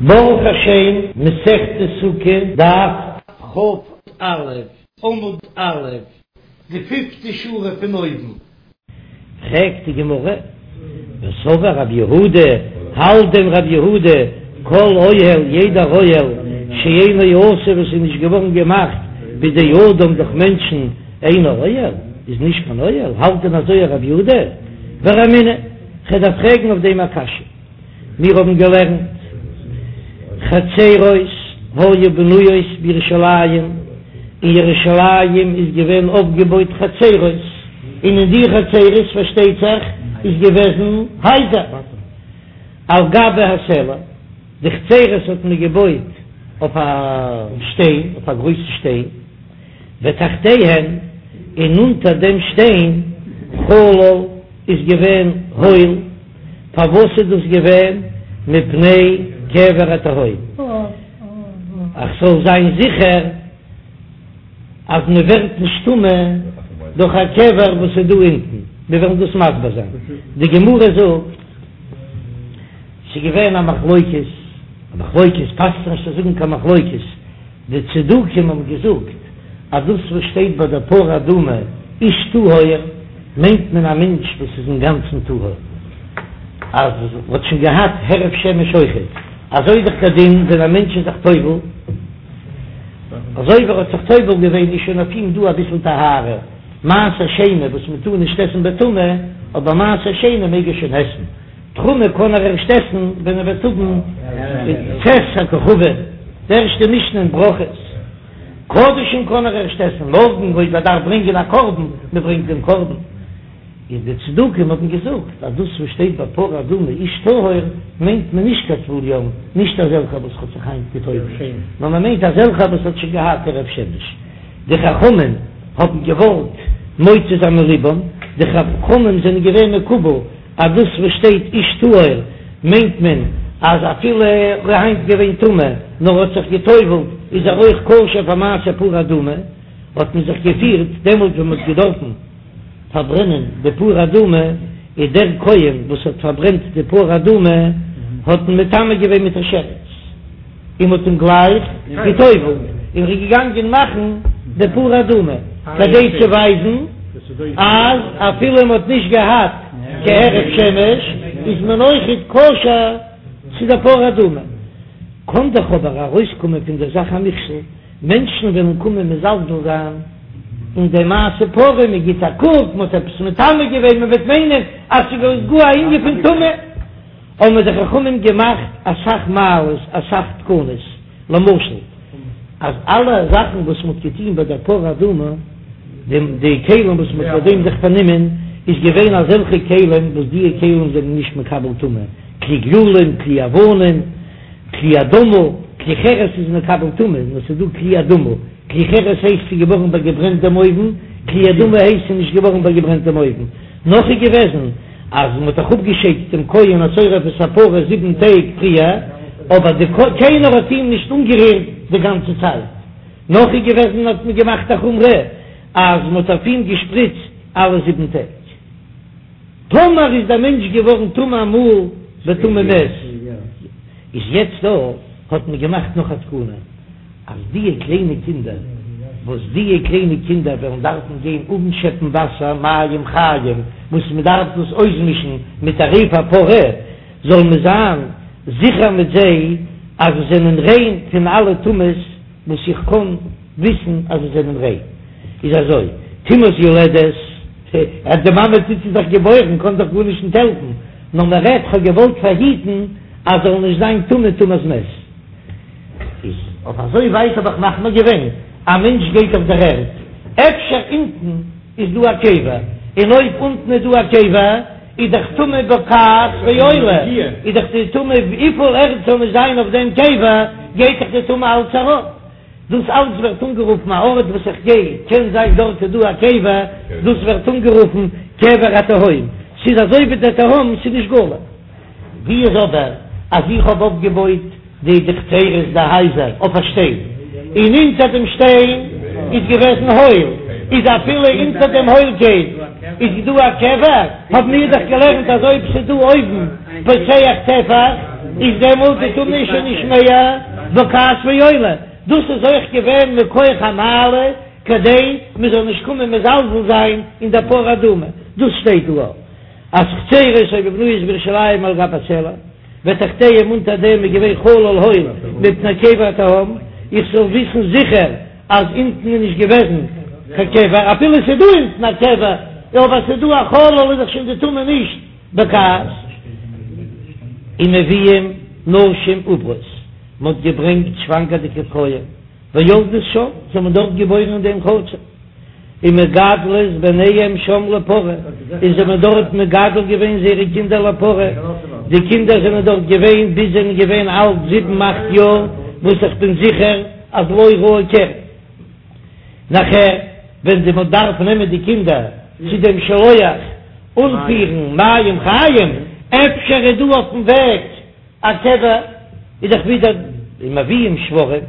ברוך השם, מסכת סוכה, דף כ"א, עמוד א', די פיפטע שורה פון אויבן. פרעגט די גמרא, וסבר רב יהודה, האלט דען רב יהודה, כל אוהל, יעדער אוהל, שאינו עשוי וואס איז נישט געווארן געמאכט בידי אדם דורך מענטשן, אינו אוהל, איז נישט קיין אוהל, האלט דען אזוי רב יהודה? ורמינהו, כ'דארף פרעגן אויף דעם א קשיא. מיר האבן געלערנט חצרות היו בנויות בירושלים, אין ירושלים איז געווען אויפגעבויט חצרות, און אין די חצרות פארשטייט זיך איז געוועזן הייזער על גבי הסלע, די חצרות האט מען געבויט אויף א שטיין, אויף א גרויסן שטיין, ותחתיהן, און אונטער דעם שטיין חלל איז געווען הויל. פארוואס איז דאס געווען? מפני קבר התהום, אז ס'זאל זיין זיכער אז מען ווערט נישט טמא דורך א קבר וואס איז דא אונטן, מיר וועלן דאס מסביר זיין, די גמרא זאגט ס'איז געווען א מחלוקת, א מחלוקת פאסט זיך נישט צו זאגן קיין מחלוקת, די צדוקים האבן געזאגט אז דאס וואס שטייט ביי די פרה אדומה איש טהור מיינט מען א מענטש וואס איז אינגאנצן טהור, אז האט שוין געהאט הערב שמש אויכעט, אזוי איז דאך דער דין ווען א מענטש איז זיך טובל, אזוי ווי ער האט זיך טובל געווען איז שוין אויף אים דא אביסל טהרה, מעשר שני וואס מען טאר נישט עסן בטומאה, אבער מעשר שני מעג ער שוין עסן. תרומה קען ער ערשט עסן ווען ער וועט האבן צאת הכוכבים, די ערשטע משנה אין ברכות. קדשים קען ער ערשט עסן מארגן אויב ער דארף ברענגען א קרבן, מען ברענגט דעם קרבן. איז די צדוקים האבן געזאגט אז דאס וואס שטייט ביי פרה אדומה איש טהור מיינט מען נישט קיין טבול יום, נישט אזעלכע וואס האט זיך היינט געטובלט, נאר מען מיינט אזעלכע וואס האט שוין געהאט הערב שמש. די חכמים האבן געוואלט מוציא זיין מליבם, די חכמים זענען געווען מקובל אז דאס וואס שטייט איש טהור מיינט מען אז אפילו ער איז היינט געווען טמא נאר האט זיך גע'טובל'ט איז ער אויך כשר פאר מעשה פרה אדומה, האט מען זיך געפירט דעמאלט ווען מען האט געדארפן פארברענען די פרה אדומה איז דער כהן וואס האט פארברענט די פרה אדומה האט מען מטמא געווען מיט א שרץ. און מ'האט אים גלייך גע'טובל'ט, און ער איז געגאנגען מאכן די פרה אדומה, כדי צו ווייזן אז אפילו מ'האט נישט געהאט קיין הערב שמש, איז מען אויכעט כשר צו די פרה אדומה. קען דאך אבער ארויסקומען פון דער זאך א מכשול, מענטשן וועלן קומען מזלזל זיין אין די מעשה פרה, מ'גיט א קוק, מ'האט עפעס מטמא געווען, מ'וועט מיינען אז ס'איז גאר א ענין פון טומאה. האבן די חכמים געמאכט אסאך מעלות, אסאך תקנות, למשל אז אלע זאכן וואס מ'האט געטון ביי דער פרה אדומה, די כלים וואס מ'האט ביי דעם זיך פארנומען, איז געווען אזעלכע כלים וואס דיע כלים זענען נישט מקבל טומאה, כלי גללים, כלי אבנים, כלי אדמה, כלי חרס איז מקבל טומאה, נאר ס'איז דא כלי אדמה, כלי חרס הייסט ס'איז געווארן ביי געברענט דעם אויוון, כלי אדמה הייסט ס'איז נישט געווארן ביי געברענט דעם אויוון, נאך איז געוועזן. אז מען האט דאך אפגעשיידט דעם כהן השורף את הפרה זיבן טעג פריער, אבער די קיינער האט אים נישט אנגערירט די גאנצע צייט. נאך איז געוועזן האט מען געמאכט א חומרא אז מען האט אויף אים געשפריצט אלע זיבן טעג. טאמער איז דער מענטש געווארן טמא אמאל בטומאת מת, איז יעצט דא האט מען געמאכט נאך א תקנה. אז דיע קליינע קינדער, וואס דיע קליינע קינדער וועלן דארפן גיין אנשעפן וואסער מים חיים, וואס מען דארף דאס אויסמישן מיט עריף הפרה, זאל מען זיין זיכער מיט זיי אז זיי זענען ריין פון אלע טומאות וואס איך קען וויסן אז זיי זענען ריין. איז אזוי, טומאת יולדת, אז די מאמע טוט זי דאך געבוירן קען דאך גארנישט נישט העלפן, נאר מען רעדט כ'האב געוואלט פארהיטן אז זאל נישט זיין טמא טומאת מת. איז אויף אזוי ווייט האב איך מחמיר געווען, א מענטש גייט אויף דער ערד, אפשר אונטן איז דא א קבר, און אויב אונטן איז דא א קבר, איז דאך טומאה בוקעת ועולה, איז דאך די טומאה וויפיל ערד זאל נישט זיין אויף דעם קבר, גייט דאך די טומאה אלץ ארויף. דאס אלץ ווערט אנגערופן א ארט וואס איך גיי, קען זיין דארט איז דא א קבר, דאס ווערט אנגערופן קבר התהום, ס'איז אזוי ווי דער תהום, ס'איז נישט גלוי. ווי איז אבער אז איך האב אויפגעבויט די די חצרות די הייזער אויף א שטיין, און אונטער דעם שטיין איז געוועזן הויל, איז אפילו אונטער דעם הוילקייט איז דא א קבר, האבן מיר דאך געלערנט אז אויב ס'איז דא אויבן פותח טפח. איז דעמאלט די טומאה שוין נישט מער בוקעת ועולה, דאס איז אויך געווען מכח המעלה כדי מען זאל נישט קומען מזלזל זיין אין דער פרה אדומה, דאס שטייט דא אז חצרות היו בנויות בירושלים על גבי הסלע. ותחתיהם אונטער דעם איז געווען חלל הויל מפני קבר התהום, איך זאל וויסן זיכער אז אונטן איז נישט געוועזן קיין קבר, אפילו ס'איז דא אונטן א קבר, אבער ס'איז דא א חלל איז דאך שוין די טומאה נישט בוקעת. ומביאים נשים עוברות, מ'האט געברענגט שוואנגערדיגע פרויען. ויולדות שם, זיי האבן דארט געבוירן אין דעם חצר, ומגדלות בניהם שם לפרה, און זיי האבן דארט מגדל געווען זייערע קינדער לפרה, די קינדער זענען דארט געווען ביז זיי זענען געווען אלט זיבן אכט יאר, וואס איך בין זיכער אז לא ראו קרי. נאכער ווען די מען דארף נעמען די קינדער צו דעם שילוח אנפירן מים חיים, אפשר איז דא אויפן וועג א קבר איז דאך ווידער ומביאים שוורים,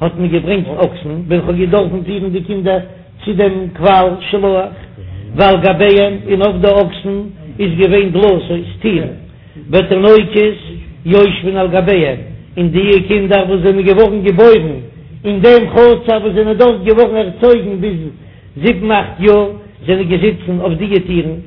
האט מען געברענגט אקסן ווען כ'האב געדארפן פירן די קינדער צו דעם קוואל שילוח, ועל גביהם און אויף די אקסן איז געווען דלתות טירן, ותינוקות יושבין על גביהם, און די קינדער וואס זענען געווארן געבוירן אין דעם חצר וואס זענען דארט געווארן ערצויגן ביז זיבן אכט יאר זענען געזיצן אויף די טירן.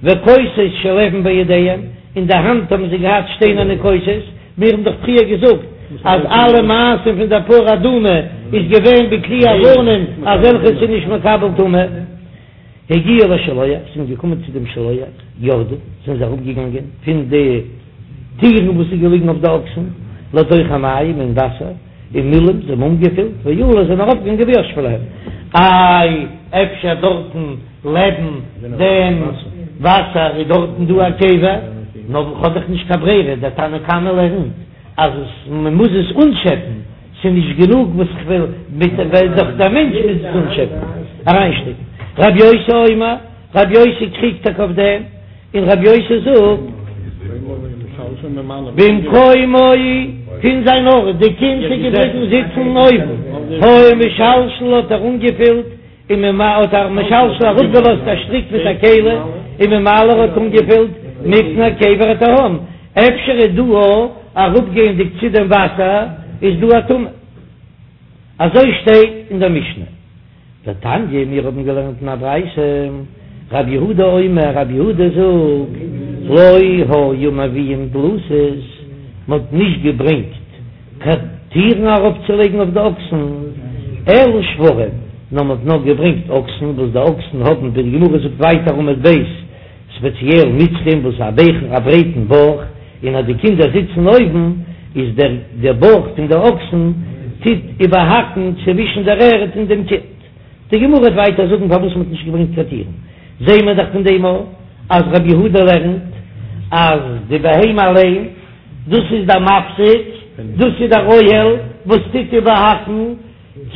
וכוסות של אבן בידיהם, אין די האנט האבן זיי געהאט שטיינערנע כוסות, מיר האבן דאך פריער געזאגט אז אלע מעשים פון דער פרה אדומה איז געווען בכלי אבנים אזעלכע ס'איז נישט מקבל טומאה. הגיעו לשילוח, זענען געקומען צו דעם שילוח, ירדו, זענען זיי אראפגעגאנגען פון די טירן וואס איז געליגן אויף די אקסן, לתוך המים, אין וואסער, ומילאום, זיי האבן אנגעפילט, ועלו, זענען ארויפגעגאנגען וישבו להם. איי, אפשר דארטן לעבן דעם וואסער איז דארטן דא א קבר? נאר כ'האב דאך נישט קיין ברירה, דער תנא קמא לערנט אז עס מען מוז עס אנטשעפן, ס'איז נישט גענוג וואס כ'וויל מיט ווייל דאך דער מענטש מוז עס אנטשעפן, אריינשטעקן. רבי יוסי אומר, רבי יוסי קריגט טאקע אויף דעם. און רבי יוסי זאגט, במקומו פון זיין ארט, די קינד איז געבליבן זיצן אויבן, היה משלשל האט ער אנגעפילט, און האט ער משלשל אראפגעלאזט א שטריק מיט א כלי, וממלא האט אנגעפילט מפני קבר התהום, אפשר איז דא אראפגייענדיג צו דעם וואסער איז דא א טומאה, אזוי שטייט אין דער משנה. ותניא, מיר האבן געלערנט אין א ברייתא, רב יהודה אומר, רב יהודה זאגט, לא היו מביאים דלתות, מען האט נישט געברענגט קיין טירן ארויפצולייגן אויף די אקסן, אלא שוורים, נאר מען האט נאר געברענגט אקסן, וואס די אקסן האבן, ווי די גמרא זאגט ווייטער עמוד ב', ספעציעל מצרים וואס א בייכן א ברייטן בויך, און אז די קינדער זיצן אויבן, איז דער דער בויך פון די אקסן טוט איבערהאקן צווישן דער ערד און דעם קינד. די גמרא וועט ווייטער זאגן פארוואס מ'האט נישט געברענגט קיין טירן, זעהן מיר דאך פון דעם אויך אז רבי יהודה לערנט אז די בהמה אליין, דאס איז דער מפסיק, דאס איז דער אוהל וואס טוט איבערהאקן,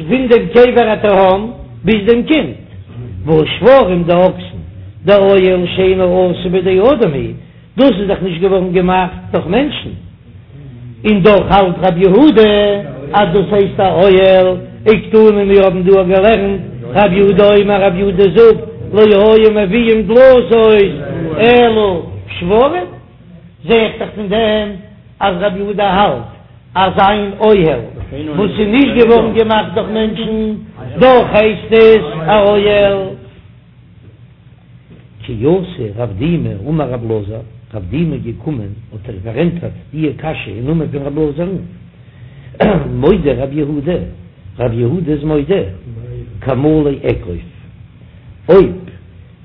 פון דעם קבר התהום ביז דעם קינד, והא שוורים די אקסן, דאוהל שאינו עשוי בידי אדם הוא, דאס איז דאך נישט געווארן געמאכט דורך מענטשן, און דאך האלט רבי יהודה אז דאס הייסט א אוהל, וקתני מיר האבן דא געלערנט רבי יהודה אומר רבי יהודה זאגט לא היו מביאים דלתות אלא שוורים, זע איך דאך פון דעם אז רבי יהודה האלט אז אן אוהל וואס איז נישט געווארן געמאכט דורך מענטשן, דאך הייסט עס א אוהל. כי אתא רב דימי אמר רב אלעזר, רב דימי איז געקומען האט ער פארענטפערט די קשיא אין נאמען פון רב אלעזר'ן, מודה רב יהודה, רב יהודה איז מודה, כמלא אגרוף, אויב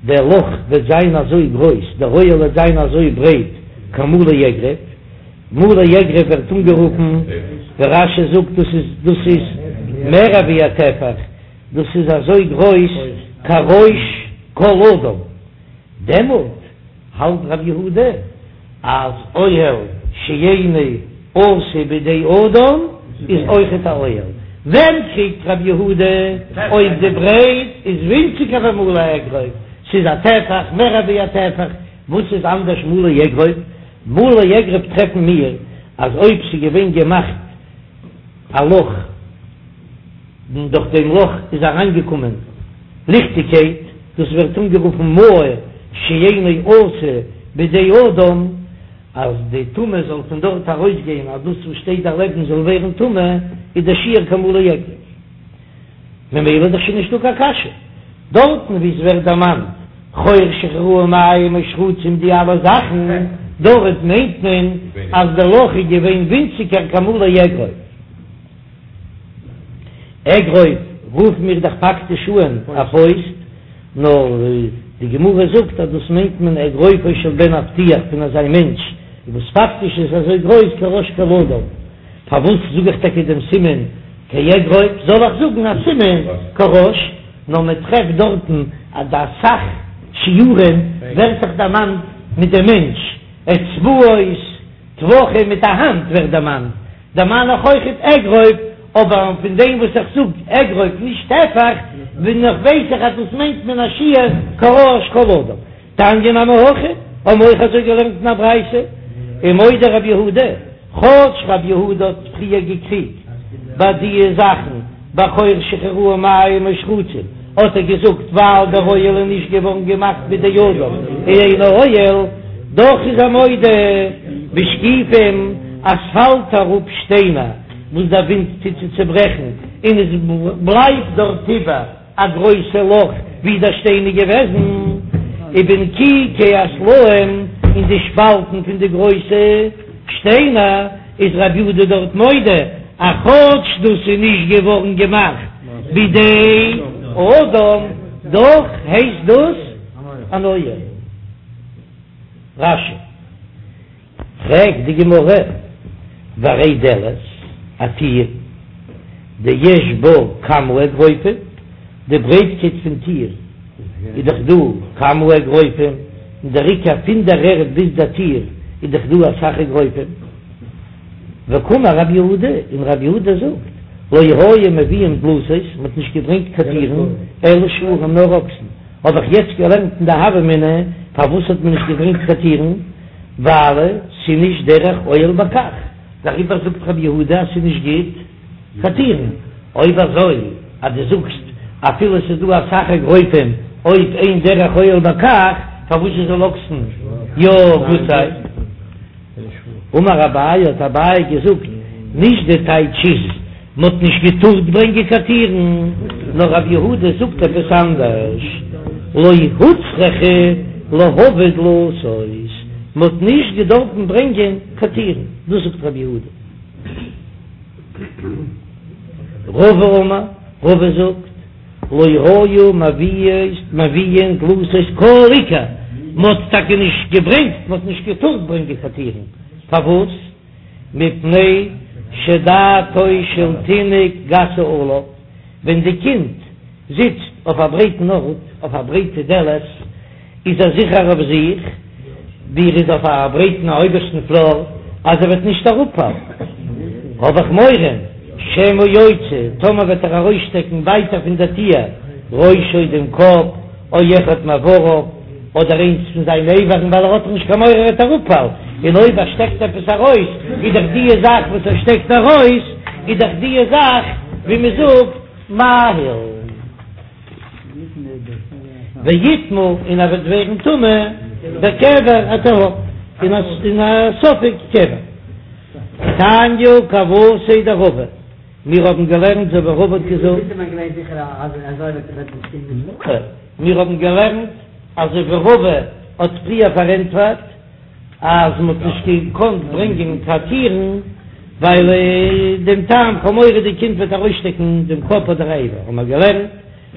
דער לאך וועט זיין אזוי גרויס, דער אוהל וועט זיין אזוי ברייט, כמלא אגרוף, מלא אגרוף ווערט אנגערופן, ווי רש"י זאגט דאס איז דאס איז מער ווי א טפח, דאס איז אזוי גרויס כראש כל אדם, דעמאלט האלט רב יהודה אז אוהל שאינו עשוי בידי אדם איז אויכעט א אוהל, ווען קריגט רב יהודה אויב די ברייט איז ווינציגער ווי מלא אגרוף, ס'איז א טפח מער ווי א טפח, וואס איז אנדערש מלא אגרוף? מלא אגרוף טרעפן מיר אז אויב ס'איז געווען געמאכט א לאך און דורך דעם לאך איז אריינגעקומען ליכטיגקייט, דאס ווערט אנגערופן מאור שאינו עשוי בידי אדם. אז די טומאה זאל פון דארט ארויסגיין אז דאס וואס שטייט דערלעבן זאל ווערן טמא, איז דער שיעור כמלא אגרוף. ממילא איז דאך שוין נישטא קיין קשיא. דארטן וואו עס ווערט דערמאנט חור שהחיירוהו מים או שרצים די אלע זאכן, דארט מיינט מען אז דער לאך איז געווען ווינציגער כמלא אגרוף. אגרוף רופן מיר דאך פאקטיש אן א פויסט, נאר די גמרא זאגט אז דאס מיינט מען אגרופו של בן אבטיח פון אזא מענטש וואס פאקטיש איז אזוי גרויס כראש כל אדם. פארוואס זאג איך טאקע דעם סימן כאגרוף? זאל איך זאגן א סימן כראש? נאר מען טרעפט דארטן אז די אסאך שיעורים ווערט זיך דערמאנט מיט דעם מענטש, אצבעות, טפחים מיט א האנט ווערט דערמאנט, דערמאן איך אויכעט אגרוף, אבער פון דעם וואס איך זאג אגרוף נישט טפח, בין איך ווייס איך אז דאס מיינט מען א שיעור כראש כל אדם. תניא נמי הכי, האבן מיר אויך אזוי געלערנט אין א ברייתא, ומודה רבי יהודה, כאטש רבי יהודה האט פריער געקריגט ביי די זאכן ביי חור שהחיירוהו מים או שרצים, האט ער געזאגט ווייל דער אוהל איז נישט געווארן געמאכט בידי אדם אינו אוהל, דאך איז ער מודה בשקיפים אז ס'פאלט אראפ שטיינער וואס דער ווינט טוט צו צוברעכן און עס בלייבט דארט איבער א גרויסע לאך ווי דער שטיין איז געוועזן, ובנקיקי הסלעים, אין די שפאלטן פון די גרויסע שטיינער, איז רבי יהודה דארט מודה אז כאטש דאס איז נישט געווארן געמאכט בידי אדם, דאך הייסט דאס אן אוהל. רש"י. פרעגט די גמרא, והרי דלת, א טיר, דיש בה כמה אגרופים, די ברייטקייט פון טיר איז דאך דא כמה אגרופים, און דער עיקר פון דער ערד ביז דער טיר איז דאך דא אסאך אגרופים. וקאמר רב יהודה, און רב יהודה זאגט, לא היו מביאין דלתות, מען האט נישט געברענגט קיין טירן, אלא שוורים נאר אקסן, האב איך יעצט געלערנט אין די הוה אמינא, פארוואס האט מען נישט געברענגט קיין טירן? ווייל ס'איז נישט דרך אוהל בכך, דעריבער זאגט רבי יהודה אז ס'איז נישט גוט קיין טירן, אויב אזוי אז דו זאגסט אפילו ס'איז דא אסאך אגרופים אויב אין דרך אוהל בכך, פארוואס זאל אקסן יא גוט זיין? אמר אביי האט אביי געזאגט, נישט די טייטש איז מ'האט נישט געטארט ברענגען קיין טירן, נאר רב יהודה זאגט עפעס אנדערש, לא הוצרכו להביא דלתות, מ'האט נישט געדארפן ברענגען קיין טירן, דאס זאגט רב יהודה. רבא אמר, רבא זאגט, לא היו מביאין דלתות כל עיקר, מ'האט טאקע נישט געברענגט, מ'האט נישט געטארט ברענגען קיין טירן, פארוואס? מפני שדעתו של תינוק גסה עליו, ווען די קינד זיצט אויף א ברייטן ארט, אויף א ברייטע דלת, איז ער זיכער אויף זיך, ווי ער איז אויף א ברייטן אויבערשטן פלאר, אז ער וועט נישט אראפפאלן. האב איך מורא, שמא יוציא, טאמער וועט ער ארויסשטעקן ווייטער פון דער טיר, ראשו דעם קאפ, או אחד מאבריו, אדער איינס פון זיינע איברים, ווייל ער האט דאך נישט קיין מורא ער וועט אראפפאלן, און אויב ער שטעקט עפעס ארויס, איז דאך דיע זאך וואס ער שטעקט ארויס, איז דאך דיע זאך, ווי מען זאגט, מאהיל. ויטמא און ער וועט ווערן טמא בקבר התהום, אין א ספק קבר. תניא כוותיה דרבא, מיר האבן געלערנט אזוי ווי רבא האט געזאגט. מיר האבן געלערנט אזוי ווי רבא האט פריער פארענטפערט אז מען האט נישט געקאנט ברענגען קיין טירן ווייל דעם טעם כ'האב מורא די קינד וועט ארויסשטעקן דעם קאפ אדער א אבר, האבן מיר געלערנט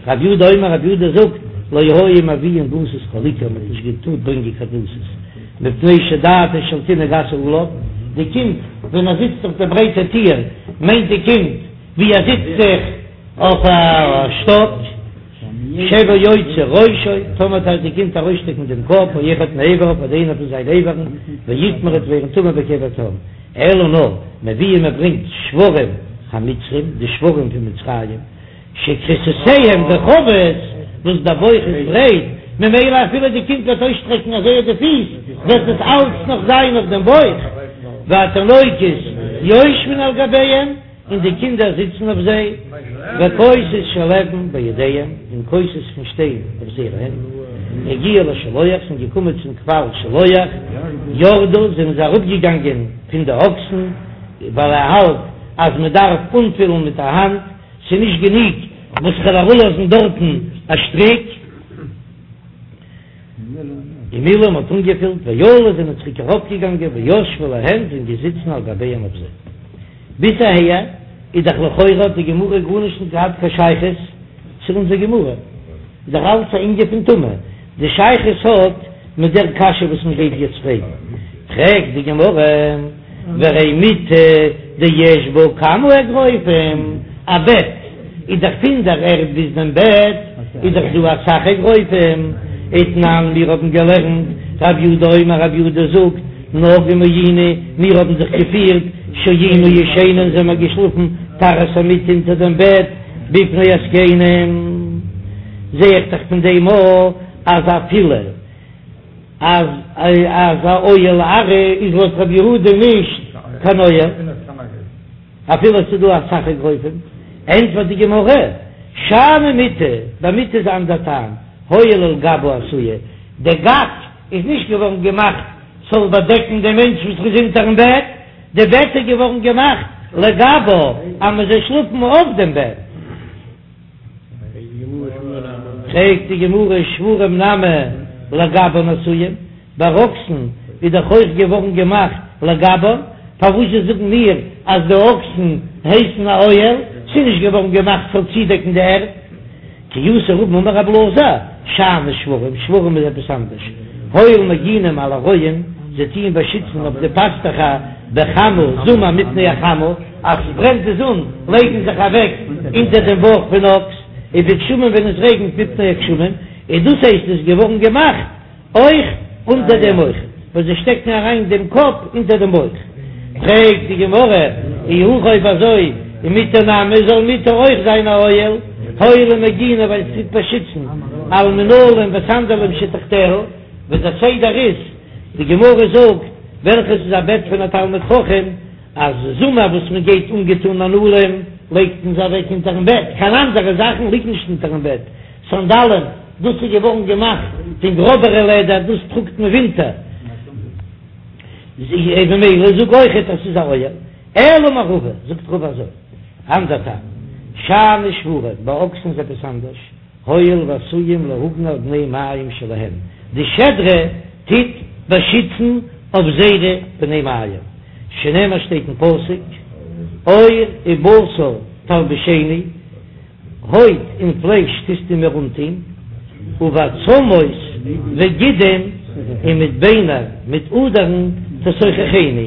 רב יהודה אומר רב יהודה זאגט לא היו מביאין דלתות כל עיקר מען האט נישט געטארט ברענגען קיין דלתות מפני שדעתו של תינוק גסה עליו, די קינד ווען ער זיצט אויף די ברייטע טיר מיינט די קינד ווי ער זיצט זיך אויף א שטאק, שמא יוציא ראשו, טאמער וועט די קינד ארויסשטעקן דעם קאפ, או אחד מאבריו אדער איינער פון זיינע איברים, ויטמא וועט ווערן טמא בקבר תהום, אלא נאר מביאין מען ברענגט שוורים המצרים, די שוורים פון מצרים, שכריסותיהם רחבות, וואס דער בויך איז ברייט, ממילא אפילו די קינד וועט אויסשטרעקן אזוי די פיס, וועט עס אלץ נאך זיין אויף דעם בויך, והתינוקות יושבין על גביהם, און די קינדער זיצן אויף זיי, וכוסות של אבן בידיהם, און כוסות פון שטיין אויף זייערע הענט. הגיעו לשילוח, זענען געקומען צום קוואל שילוח, ירדו, זענען זיי אראפגעגאנגען פון די אקסן, ווייל ער האלט אז מען דארף אנפילן מיט א האנט, ס'איז נישט גענוג וואס כ'וועל אראפלאזן דארטן א שטריק. ומילאו, מ'האט אנגעפילט, ועלו זענען צוריק ארויפגעגאנגען, וישבו להן זענען געזיצן על גביהן אויף זיי. ביז אהער איז דאך לכאורה האט די גמרא גארנישט נישט געהאט קיין שייכות צו אונזער גמרא, איז דאך אלץ א ענין פון טומאה, די שייכות האט מיט דער קשיא וואס מען גייט יעצט פרעגן, פרעגט די גמרא, והרי מיטה דיש בה כמה אגרופים, א בעט איז דאך פון דער ערד ביז דעם בעט איז דאך דא אסאך אגרופים, ותנן מיר האבן געלערנט, רב יהודה אומר רב יהודה זאגט, נוהגים היינו, מיר האבן זיך געפירט, שהיינו ישנים זעמער געשלאפן תחת המיטה אונטער דעם בעט, בפני הזקנים, זע איך דאך פון דעם אויך אז אפילו אז אז א אוהל עראי איז לויט רבי יהודה נישט קיין אוהל, אפילו עס איז דא אסאך אגרופים, ענטפערט די גמרא, שאני מיטה, ביי מיטה איז א אנדער טעם, הואיל ולגבה עשויה, די גג איז נישט געווארן געמאכט ס'זאל באדעקן דעם מענטש וואס איז אונטערן בעט, די בעט איז געווארן געמאכט לגבה אז מען זאל שלאפן אויף דעם בעט. פרעגט די גמרא שוורים נמי לגבן עשויים, ביי אקסן איז דאך אויך געווארן געמאכט לגבן, פארוואס זשע זאגן מיר אז די אקסן הייסן א אוהל, ס'איז נישט געווארן געמאכט ס'זאל צודעקן די ערד? כי אתא רבין אמר רב אלעזר, שאני שוורים, שוורים איז עפעס אנדערש, הואיל ומגינים על הרועים, זיי טוען באשיצן אויף די פאסטעכער בחמה, זומער מפני החמה, אז ס'ברענט די זון לייגן זיך אוועק אונטער דעם בויך פון אקס, ובגשמים ווען עס רעגנט מפני הגשמים, און דאס הייסט עס איז געווארן געמאכט אויך אונטער דעם אויך, וואס זיי שטעקן אריין דעם קאפ אונטער דעם בויך. פרעגט די גמרא, אי הכי אויב אזוי, ומטה נמי, זאל מטה אויך זיין א אוהל, הואיל ומגינא ווייל עס טוט באשיצן על מנעלים וסנדלים שתחתיה, ווי דער סדר איז, די גמרא זאגט, וועלכעס איז א בעט פון א תלמיד חכם, אז זומער וואס מען גייט אנגעטון מנעלים לייגט מען זיי אוועק אונטערן בעט, קיין אנדערע זאכן ליגט נישט אונטערן בעט, סאנדאלען, דאס איז געווארן געמאכט פון גראבערע לעדער, דאס טראגט מען ווינטער, ממילא זאג אויכעט אז ס'איז א אוהל. אלא אמר רבא, זאגט רבא אזוי, אנדער טעם, שאני שוורים, ביי אקסן איז עפעס אנדערש, הואיל ועשויים להגן על בני מעיים שלהם, די שדרה טוט באשיצן אויף זייערע בני מעיים, שנאמר שטייט אין פסוק, עור ובשר תלבישני, הויט און פלייש טוסטו מיר אנטון, ובעצמות וגידים, און מיט ביינער מיט אדערן תסוככני,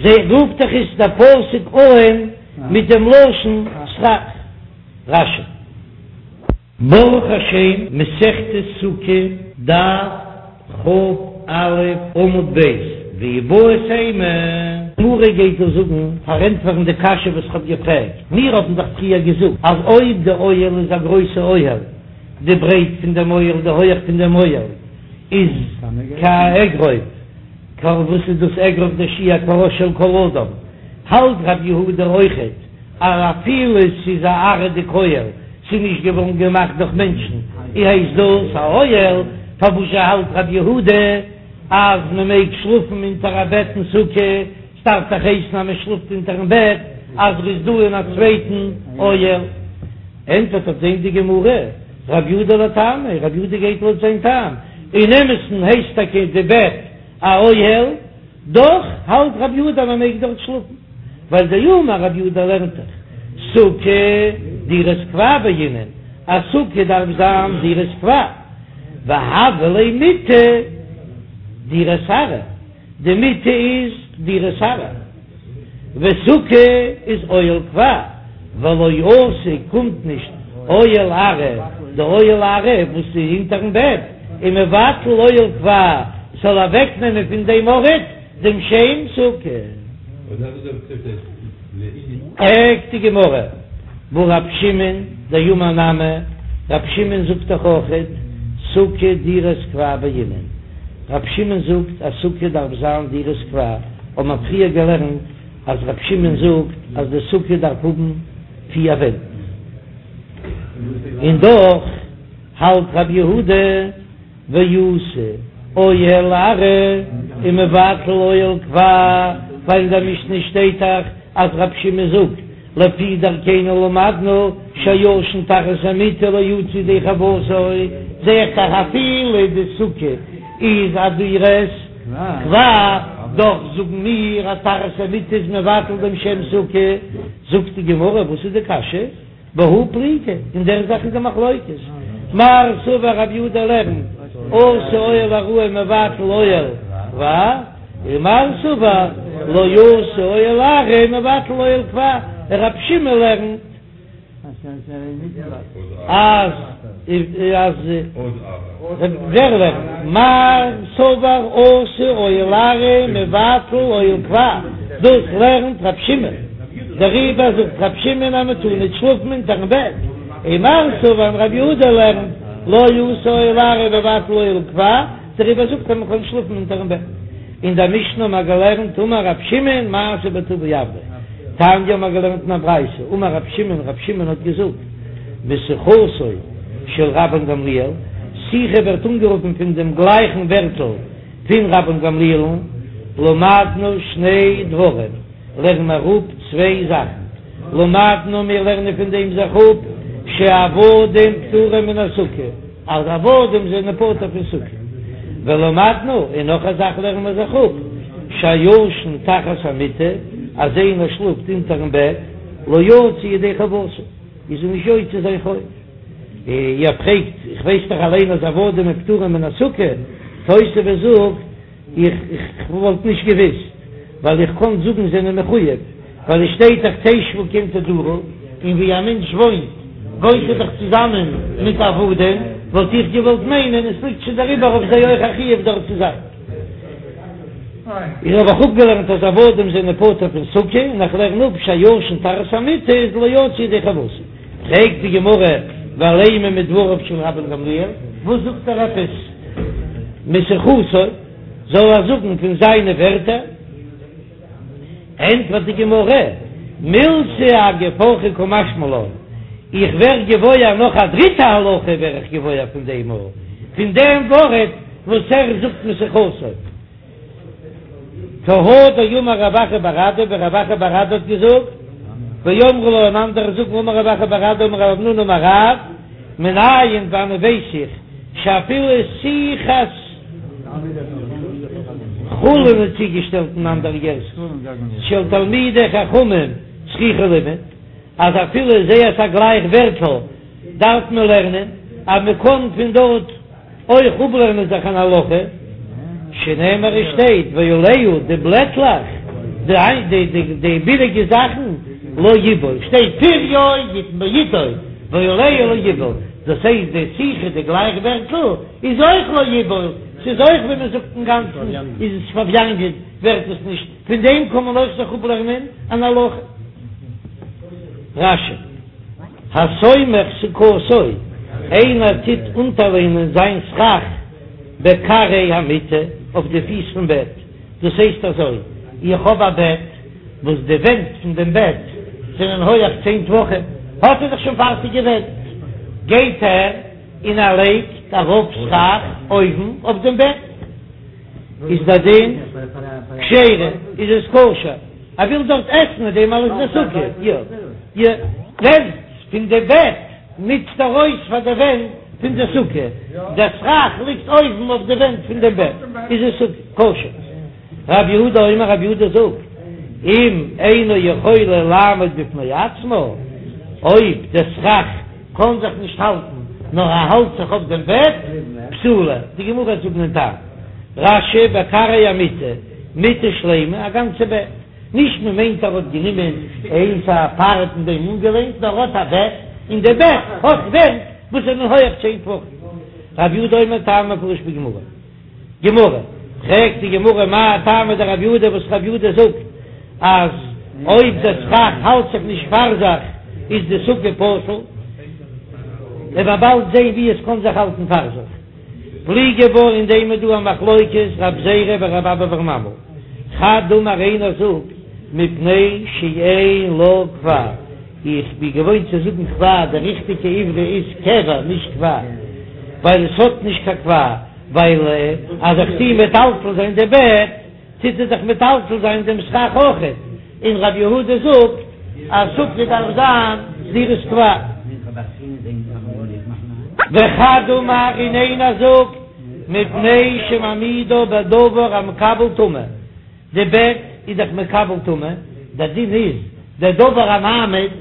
זע רופט דאך עס דער פסוק אהן מיט דעם לשון סכך. רש"י. ברוך השם, מסכת סוכה, דף כ"א עמוד ב', ואיבעית אימא. גמרא גייט דא זאגן, פארענטפערן די קשיא וואס כ'האב געפרעגט, מיר האבן דאך פריער געזאגט אז אויב די אוהל איז א גרויסע אוהל, די ברייט פון דעם אוהל, די הויעך פון דעם אוהל איז כאגרוף, וואס איז דאס אגרוף דער שיעור כראש של כל אדם, האלט רב יהודה אויכעט אז אפילו ס'איז א עראי'דיג אוהל, ס'איז נישט געווארן געמאכט דורך מענטשן, אי הייסט דאס א אוהל, פארוואזשע האלט רב יהודה אז מען מעג שלאפן אונטער א בעט אין סוכה, ס'דארף דאך הייסן אז מען שלאפט אונטערן בעט אז ר'איז דא אין א צווייטן אוהל. ענטפערט אויף דעם די גמרא, רב יהודה לטעמיה, רב יהודה גייט לויט זיין טעם, אין אמת'ן הייסט טאקע די בעט א אוהל, דאך האלט רב יהודה אז מען מעג דארט שלאפן, ווייל דאמר רב יהודה לערנט דאך סוכה דירת קבע בעינן, א סוכה דארף זיין דירת קבע, והוה ליה מיטה דירת עראי, די מיטה איז דירת עראי, וסוכה איז אוהל קבע, ולא אתי קומט נישט אוהל עראי, די אוהל עראי וואס איז אונטערן בעט איז מבטל אוהל קבע, ס'זאל אוועקנעמען פון דעם ארט דעם שם סוכה. פרעגט די גמרא, והא רב שמעון דאמר נמי, רב שמעון זאגט דאך אויכעט סוכה דירת קבע בעינן, רב שמעון זאגט אז סוכה דארף זיין דירת קבע, האט מען פריער געלערנט אז רב שמעון זאגט אז די סוכה דארף האבן פיר ווענט, און דאך האלט רב יהודה. ואתי אוהל ארעי ומבטל אוהל קבע, ווייל אין דער משנה שטייט דאך אז רב שמעון זאגט לפי דרכינו למדנו שהישן תחת המיטה לא יצא ידי חובתו, זע איך דאך אפילו די סוכה איז א דירת קבע, דאך זאגן מיר אז תחת המיטה איז מבטל דעם שם סוכה, זאגט די גמרא וואס איז די קשיא? בהא פליגי, אין דער זאך איז די מחלוקת, מר סבר רב יהודה לערנט אתי אוהל עראי מבטל אוהל קבע, און מר סבר לא אתי אוהל עראי מבטל אוהל קבע, רב שמעון לערנט אז אז ווער לערנט? מר סבר אתי אוהל עראי מבטל אוהל קבע, דאס לערנט רב שמעון. דעריבער זאגט רב שמעון אז מען טאר ניט שלאפן אונטערן בעט, און מר סבר און רב יהודה לערנט לא אתי אוהל עראי מבטל אוהל קבע, דעריבער זאגט ער מען קען שלאפן אונטערן בעט. אין דער משנה האט מען געלערנט אמר רב שמעון מעשה בטבי עבדו, תניא האט מען געלערנט אין א ברייתא אמר רב שמעון רב שמעון האט געזאגט משיחתו של רבן גמליאל, שיחה ווערט אנגערופן פון דעם גלייכן ווערטל פון רבן גמליאל'ן, למדנו שני דברים. לערן מיר אפ צוויי זאכן, למדנו מיר לערנען פון דעם זיך אפ שעבדים פטורים מן הסוכה, אז עבדים זענען פטור פון סוכה, ולמדנו, און נאך א זאך לערנען מיר זיך אפ, שהישן תחת המיטה, אז איינער שלאפט אונטערן בעט, לא יצא ידי חובתו, איז ער נישט יוצא זיין חוב. איר פרעגט, איך ווייס דאך אליין אז עבדים פטורים מן הסוכה, תוספות זאגט, איך וואלט נישט געוויסט, ווייל איך קען זאגן זענען מחויב, ווייל עס שטייט דאך תשבו כן תדורו, און ווי א מענטש וואוינט, וואוינט ער דאך צוזאמען מיט עבדים, וואלט איך געוואלט מיינען עס ליגט שוין דעריבער אויף זיי אויך א חיוב דארט צו זיין. איך האב אויך אפגעלערנט אז עבדים זענען פטור פון סוכה, און איך לערן אפ שהישן תחת המיטה איז לא יצא ידי חובתו. פרעגט די גמרא, ולימא מדבריו של רבן גמליאל, וואס זאגט ער עפעס משיחתו, זאל ער זאגן פון זיינע ווערטער? ענטפערט די גמרא, מילתא אגב אורחא קא משמע לן, איך ווער געוואויר נאך א דריטע הלכה ווער איך געוואויר פון דעם, פון דעם ווארט וואס ער זאגט משיחתו. כי הא דאמר רב אחא בר אדא, ווי רב אחא בר אדא האט געזאגט, ואמרי לה און אנדערע זאגן אמר רב אחא בר אדא אמר רב המנונא אמר רב, מנין וואנען ווייס איך שאפילו שיחת חולין איז צוגעשטעלט אין אנדערע גירסאות של תלמידי חכמים צריכה לימוד, אז אפילו זייערס א גלייך ווערטל דארף מען לערנען אז מען קען פון דארט אויך אפלערנען זיך אן הלכה, שנאמר עס שטייט ועליה די בלעטלעך, די די ביליגע זאכן, לא יבול, שטייט פריו יתן בעתו, ועליה לא יבול, דאס הייסט די שיחה די גלייך ווערטל איז אויך לא יבול, ס'איז אויך ווי מען זאגט אינגאנצן איז עס פארוויאנגען ווערט עס נישט, פון דעם קען מען אויך זיך אפלערנען אן הלכה. רש"י. הסומך סוכתו, איינער טוט אונטערלענען זיין סכך בכרעי המיטה, אויף די פיס פון בעט, דאס הייסט אזוי, איך האב א בעט וואס די ווענט פון דעם בעט זענען הויעך צען טפחים, האט ער דאך שוין פארטיגע ווענט, גייט ער און ער לייגט ארויף סכך אויבן אויף דעם בעט. איז דער דין כשרה, איז עס כשר, ער וויל דארט עסן מיט דעם אלעס די סוכה, יא יא. ווענט פון די בעט נוצט ער אויס פאר די ווענט פון די סוכה, דער סכך ליגט אויבן אויף די ווענט פון דעם בעט, איז עס כשר. רב יהודה אומר רב יהודה זאגט, אם אינה יכולה לעמוד בפני עצמה, אויב דער סכך קען זיך נישט האלטן, נאר ער האלט זיך אויף דעם בעט, פסולה, די גמרא וועט זאגן דעם טעם, רש"י בכרעי המיטה, מיטה שלימה, א גאנצע בעט, נישט מען מיינט ער האט גענומען איינס א פארט און דעם אנגעלענט, נאר ער האט א בעט, און די בעט האט ווענט וואס זענען הויעך צען טפחים. רב יהודה אומר טעם מפורש בגמרא. גמרא, פרעגט די גמרא מאי טעמא דרב יהודה וואס רב יהודה זאגט אז אויב דער סכך האלט זיך נישט פאר זיך איז די סוכה פסול, וועט מען באלד זען ווי עס קען זיך האלטן פאר זיך. פליגי בה אין דעם איז דא א מחלוקת רב זירא ורב אבא בר ממל, חד אמר איינער זאגט מפני שאין לה קבע, איך בין געוואוינט צו זאגן קבע, די ריכטיגע עברי איז קבע נישט קבע, ווייל עס האט נישט קיין קבע. ווייל אז איך טו מטלטל זיין די בעט, טוט ער דאך מטלטל זיין דעם סכך אויכעט, און רב יהודה זאגט אז סוכה דארף זיין דירת קבע. וחד אמר און איינער זאגט מפני שמעמידה בדבר המקבל טומאה, די בעט איז דאך מקבל טומאה, דער דין איז דער דבר המעמיד,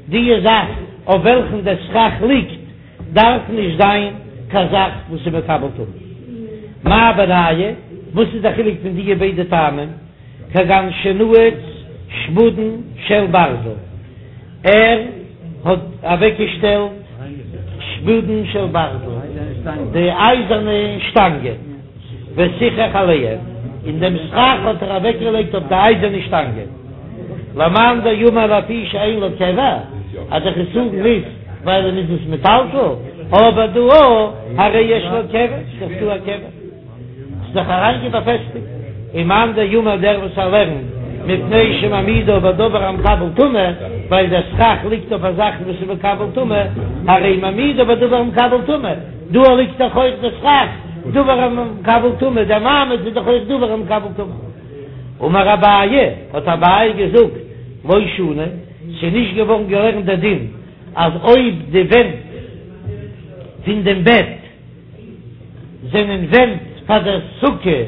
די זאך אויף וועלכן דער סכך ליגט דארף נישט זיין קיין זאך וואס איז מקבל טומאה. מאי בינייהו? וואס איז די חילוק פון דיע ביידע טעמים? כגון שנעץ שפודין של ברזל, ער האט אוועקגעשטעלט שפודין של ברזל, די אייזערנע שטאנגען, וסיכך עליהם, און דעם סכך האט ער אוועקגעלייגט אויף די אייזערנע שטאנגען. למאן דאמר לפי שאין לה קבע, אז דער חסרון איז ווייל ער איז עס מטלטל, אבער דא הרי יש לה קבע, ס'איז דאך דא א קבע, ס'איז דאך אריינגעבאפעסטיגט, ומאן דאמר דער וואס ער לערנט מפני שמעמידה בדבר המקבל טומאה, ווייל דער סכך ליגט אויף א זאך וואס איז מקבל טומאה, הרי מעמידה בדבר המקבל טומאה, דא ליגט דאך אויך דער סכך, דבר המקבל טומאה, דער מעמיד איז דאך אויך דבר המקבל טומאה. אמר אביי, האט אביי געזאגט, לא שנו, ס'איז נישט געווארן געלערנט דער דין אז אויב די ווענט פון דעם בעט זענען ווענט פאר דער סוכה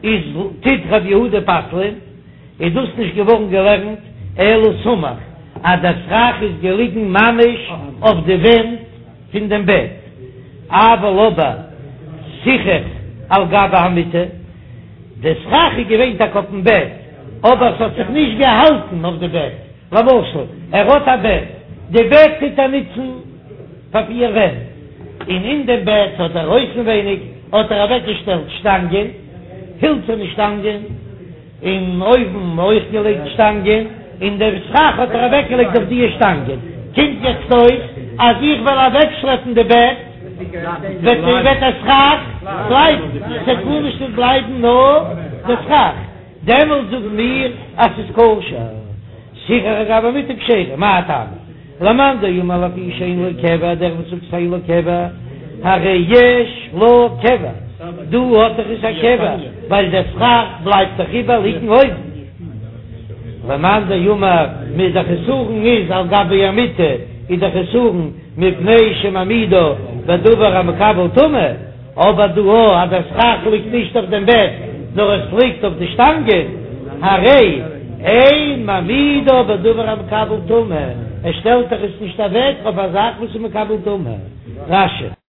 איז טוט ר' יהודה פסל'ען, איז דאס נישט געווארן געלערנט אלא סמוך אז דער סכך איז געליגן ממש אויף די ווענט פון דעם בעט, אבל אבער סיכך על גבי המיטה, די סכך איז געווען טאקע אויפן בעט, אבער ס'האט זיך נישט געהאלטן אויף די בעט, למשל ער האט א בעט, די בעט טוט ער נוצן פאר פיר ווענט, און אין דעם בעט האט ער אויסנווייניג האט ער אוועקגעשטעלט שטאנגען, הילצערנע שטאנגען, און אויבן אויך געלייגט שטאנגען, און דעם סכך האט ער אוועקגעלייגט אויף דיע שטאנגען, קומט יעצט אויס אז איך וועל אוועקשלעפן די בעט, וועט וועט דער סכך בלייבן, ס'וועט גארנישט נישט בלייבן נאר די סכך, דעמאלט זאגן מיר אז ס'איז כשר, סיכך על גבי המיטה כשרה, מאי טעמא? למאן דאמר לפי שאין לה קבע, דער וואס זאגט שאין לה קבע, הרי יש לה קבע, דא האט דאך עס א קבע, ווייל דער סכך בלייבט דאך איבער ליגן אויבן. למאן דאמר מיט דער חסרון איז על גבי המיטה, איז דער חסרון מפני שמעמידה בדבר המקבל טומאה. אבער דא אז דער סכך ליגט נישט אויף דעם בעט נאר עס ליגט אויף די שטאנגען, הרי אין מעמידה בדבר המקבל טומאה, ער שטעלט דאך עס נישט אוועק אויף א זאך וואס איז מקבל טומאה. רש"י.